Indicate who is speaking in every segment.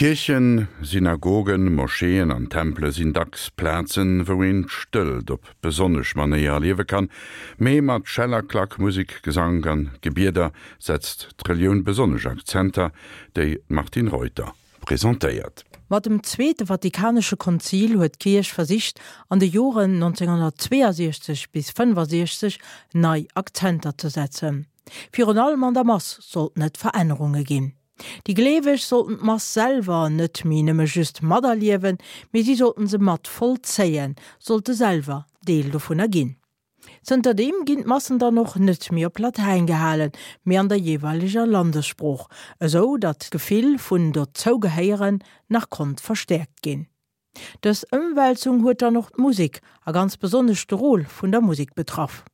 Speaker 1: Kierchen, Synagogen, Moscheeën an Tempele sinn dacks Plazen, wou een d'Stëllt op besonnesch Manéier erliewe kann. Mee mat Schell a Klack, Musek, Gesank an Gebieder setzt d'Relioun besonnesch Akzenter, déi d'Martine Reuter presentéiert.
Speaker 2: Mat dem Zweete Vatikanesche Konzil huet d'Kierch versicht, an de Joren 1962 bis 65 nei Akzenter ze setzen. Virun allem an der Mass sollten et Verännerunge ginn. Déi Gleeweg sollten d'Mass selwer net méi nëmme just materliewen, mee si sollten se mat vollzéien, sollte selwer Deel dovunner ginn. Zënterdeem ginn d'Massen dann och net méi op Latäin gehalen, mee an der jeeweileger Landessprooch, esou datt d'Gefill vun Dozougehéieren nach konnt verstäerkt ginn. Dës Ëmwälzung huet dann och d'Musek, a ganz besonnesch de Rôle vun der Musek betraff.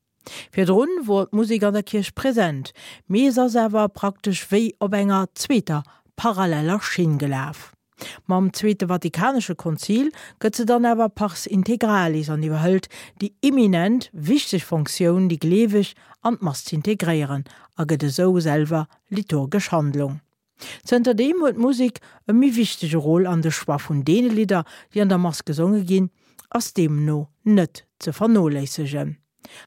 Speaker 2: Virdrun wor d'Musek an der Kierch present, mee se ass awer praktesch wéi op enger zweeter paralleller Schinn gelaf. Mam Zweete Vatikanesche Konzil gëtt se dann awer pars integralis an iwwerhëlt déi eminent wichteg Fonctioun déi Gleeweg an d'Mass z'integréieren a gëtt esou selwer liturgesch Handlung. Zënterdeem huet d'Musek e méi wichtege Rôle an de Choix vun deene Lidder, déi an der Mass gesonge ginn, ass deemno net ze vernoléissegen.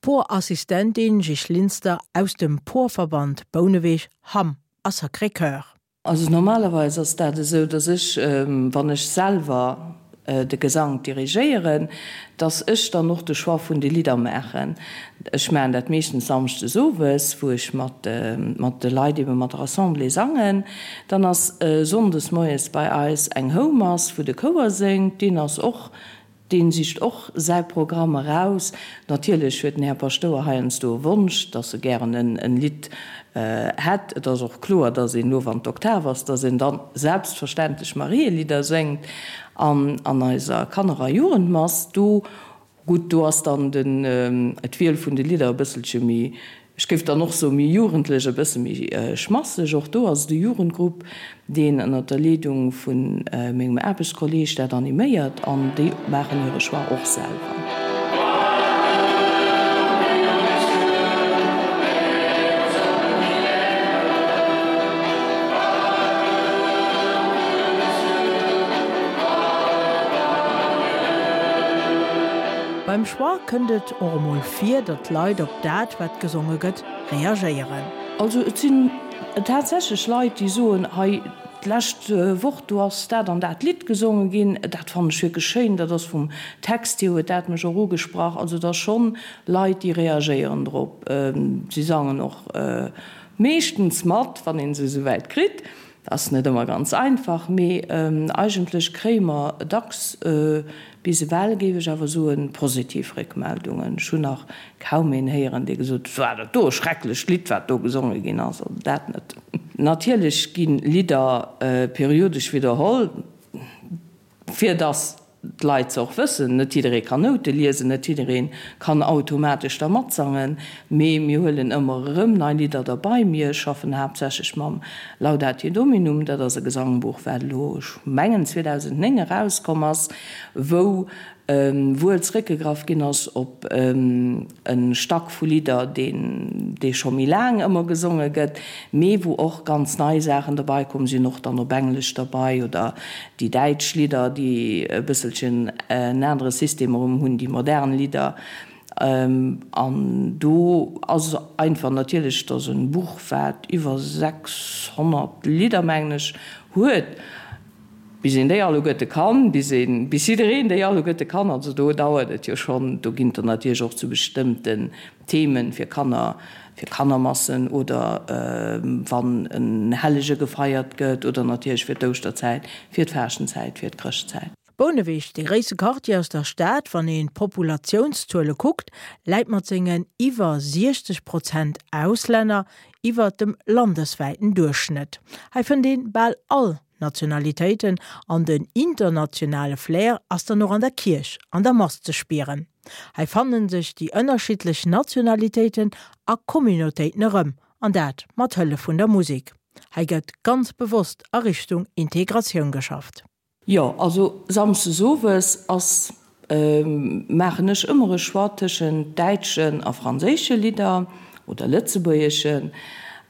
Speaker 2: Porassistentin Jisch Linster aus dem Porverband Bouneweg, Hamm a Sacré-Cœur.
Speaker 3: Also normalerweis ass dat esou, dass ech, wann ech selwer de Gesank dirigéieren, dass ech dann och de Choix vun de Lidder maachen. Ech maachen dat meeschtens samschdes owes, wou ech mat mat de Leit, ebe mat der Assemblée sangen. Dann ass sonndes moies bei eis eng Houmass, wou de Chouer séngt. Deen ass och Deen sicht och säi Programm eraus. Natierlech huet den Här Paschtouer heiansdo e Wonsch, dass e gären en Lidd hätt. Et ass och kloer, dass een elo, wann d'Oktav ass, dass een dann selbstverständlech Marielidder séngt. An an eiser Kanner a Jugendmass, do, gutt, do ass dann den, d'Wiel vun de Lidder e bësselche méi Ech géif dann och soen, méi jugendlech, e bësse méi schmasseg. Och do ass et e Jugendgrupp, deen ënnert der Leedung vu mengem Aarbechtskolleeg dat animéiert an déi maachen hire Choix och selwer.
Speaker 2: Beim Choix kënnt et och emol vir, datt d'Leit op dat, wat gesonge gëtt, reagéieren.
Speaker 3: Also et sinn tatsächlech Leit, déi soen, hei d'lescht Woch, do ass dat an dat Lidd gesonge ginn, dat fannen ech wierklech schéin, dat ass vum Text hier, huet dat mech och ugesprach. Also et ass schonn Leit, déi reagéieren drop. Si sangen och meeschtens mat, wann ee se esouwäit kritt. Dat ass net ëmmer ganz einfach, mee eigentlech kréie mer dacks, bis ewell géif ech awer soen, positiv Réckmeldungen. Ech hunn nach kaum een héieren, dee gesot huet, War dat do e schrecklecht Lidd, wat do gesonge ginn ass. Also dat net. Natierlech gi Lidder periodesch widderholl. Fir dass d'Leit se och wëssen, net jidderee kann Noute liesen, net jidderee kann automatesch da matsangen, mee mir huelen ëmmer erëm nei Lidder derbei. Mir schaffen haaptsächlech mam Laudate Dominum, dat ass e Gesangbuch, wat elo, ech mengen 2009 erauskomm ass, wou wuel zréckgegraff ginn ass op e Stack vu Lidder, deen dee scho méi laang ëmmer gesonge gëtt, mee wou och ganz nei Saachen derbei komm sinn, och dann op Englesch derbei oder déi däitsch Lidder, déi e bësselchen en anere System erëm hunn, déi modern Lidder. An do ass einfach natierlech, et ass e Buch, wat iwwer 600 Lidder, mengen ech, huet. Bis een déi alleguerte kann, bis een, bis jiddereen déi alleguerte kann, also do dauert et jo schonn. Do ginn et der natierlech och zu bestëmmten Themen, fir Kanner, fir Kannermassen oder wann en Hellege gefeiert gëtt oder natierlech fir d'Ouschterzäit, fir d'Faaschtenzäit, fir d'Chrëschtzäit.
Speaker 2: Bouneweg, dee gréisste Quartier aus der Stad, wann een d'Populatiounszuele kuckt, läit mat sengen iwwer 60 Prozent Auslänner iwwer dem landeswäiten Duerchschnëtt. Hei fënnt een bal all Nationalitéiten an den internationale Flair ass dann och an der Kierch an der Mass ze spieren. Hei fannen sech déi ënnerschiddlech Nationalitéiten a Communautéiten erëm, an dat mat Hëllef vun der Musek. Hei gëtt ganz bewosst a Richtung Integratioun geschafft.
Speaker 3: Jo, also Samschdes owes ass, maachen ech ëmmer e Choix tëschent däitschen a franséische Lidder oder lëtzebuergeschen.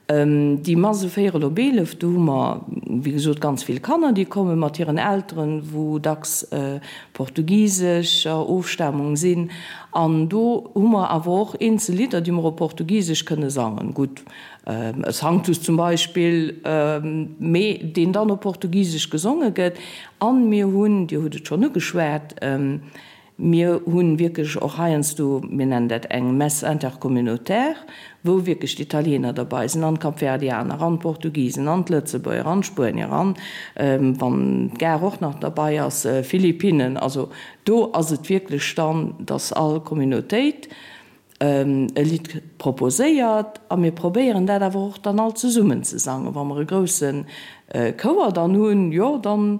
Speaker 3: Déi Mass e véierel op 11, do hu mer. wéi gesot, ganz vill Kanner, déi komme mat hiren Elteren, wou dacks portugisescher Ofstamung sinn. An do hu mer awer och eenzel Lidder, déi mer op Portugisesch kënne sangen. Gutt, e Sanctus zum Beispill, mee deen dann op Portugisesch gesonge gëtt. An mir hunn, Dir hutt et schonn ugeschwat, Mir hu wierklech och heiansdo, mir nennen dat eng Messe intercommunautaire, wou wierklech d'Italiener derbei sinn an d'Kapverdianer an d'Portugisen an d'Lëtzebuerger an d'Spuenier an, wann d'Gare och nach derbei ass, Philippinnen. Also do ass et wierklech dann, dass all Communautéit e Lidd proposéiert a mir probéieren dat awer och dann all zesummen ze sangen. Wa mer e grousse Chouer dann hunn, jo, dann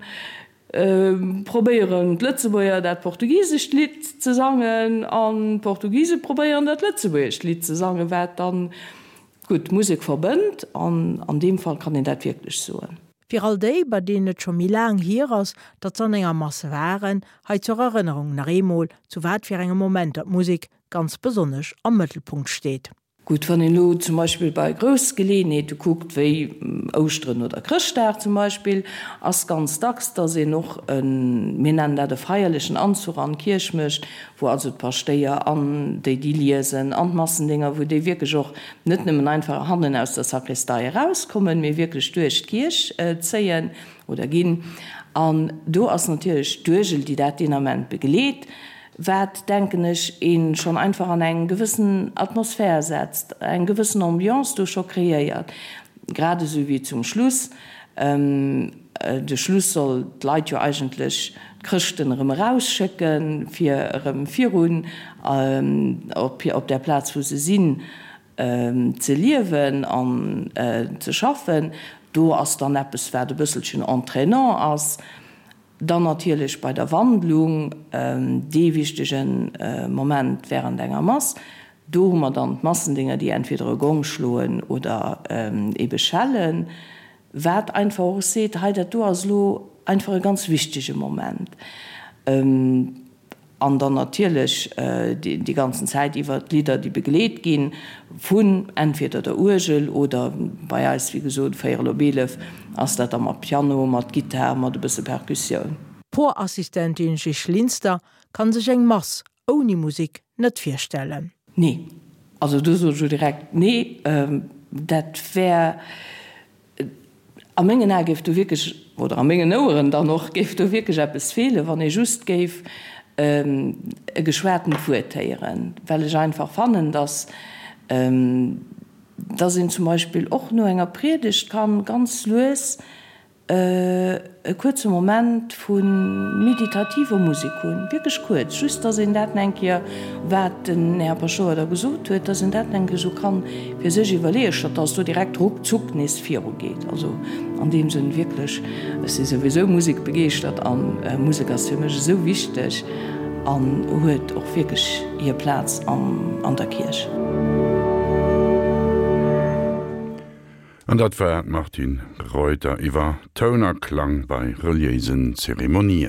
Speaker 3: Probéieren d'Lëtzebuerger dat portugisescht Lidd ze sangen an d'Portugise probéieren dat lëtzebuergescht Lidd ze sangen, wat dann, gutt, d'Musek verbënnt an an deem Fall kann een dat wierklech soen.
Speaker 2: Fir all déi, bei deenen et scho méi laang hier ass, datt se an enger Mass waren, hei zur Erënnerung nach eemol, zu wat fir engem Momenter d'Musek ganz besonnesch am Mëttelpunkt steet.
Speaker 3: Gutt, wann een elo zum Beispill bei grouss Geleeënheete kuckt, wéi Ouschteren oder Chrëschtdag zum Beispill, ass ganz dacks, dass een och en, mir nennen dat e feierlechen Anzuch an d'Kierch mécht, wou also d'Paschtéier an déi, déi liesen, an d'Massendénger, wou déi wierklech och net nëmmen einfach hannen aus der Sakristei erauskommen, mee wierklech duerch d'Kierch zéien oder ginn. An do ass natierlech d'Uergel, déi dat deen Ament begleet. Wat, denken ech, ee schonn einfach an eng gewëssen Atmosphär setzt, eng gewëssen Ambiance do scho kreéiert, grad esou wéi zum Schluss. De Schluss soll d'Leit jo eigentlech, d'Chrëschten, erëm erausschécken, fir erëm virun op op där Plaz, wou se sinn, ze liewen an ze schaffen. Do ass dann eppes, wat e bësselchen entraînant ass. Dann natierlech bei der Wandlung, dee wichtege Moment während enger Mass. Do hu mer dann d'Massendénger, déi entweder e Gong schloen oder ebe schellen, wat einfach och seet, hei dat do ass elo einfach e ganz wichtege Moment. An dann natierlech déi ganzen Zäit iwwer d'Lidder, déi begleet gi vun entweder der Uergel oder bei eis, wéi gesot, véierel op 11 ass dat da mat Piano, mat Gittar, mat e bësse Perkussioun.
Speaker 2: D'Porassistentin Jisch Linster kann sech eng Mass ouni Musik net virstellen.
Speaker 3: Nee. Also do soen ech elo direkt nee. Dat wär. A mengen Ae géif do wierklech, oder a mengen Oueren dann och, géif do wierklech eppes feelen, wann ee just géif e geschwatent Wuert héieren, well ech einfach fannen, dass, dass een zum Beispill och no enger Priedegt kann ganz lues e kuerze Moment vu meditativer Musek hunn, wierklech kuerz, just dass een dat eng Kéier, wat den Här Paschtouer da gesot huet, dass een dat eng Kéier esou kann fir sech iwwerleeën, statt dass do direkt ruckzuck nees virugeet. Also an deem Sënn wierklech, ech si souwisou musekbegeeschtert a Musek ass fir mech esou wichteg an huet och wierklech hir Plaz an der Kierch.
Speaker 1: An dat war d'Martine Reuter iwwer Toun a Klang bei reliéisen Zeremonien.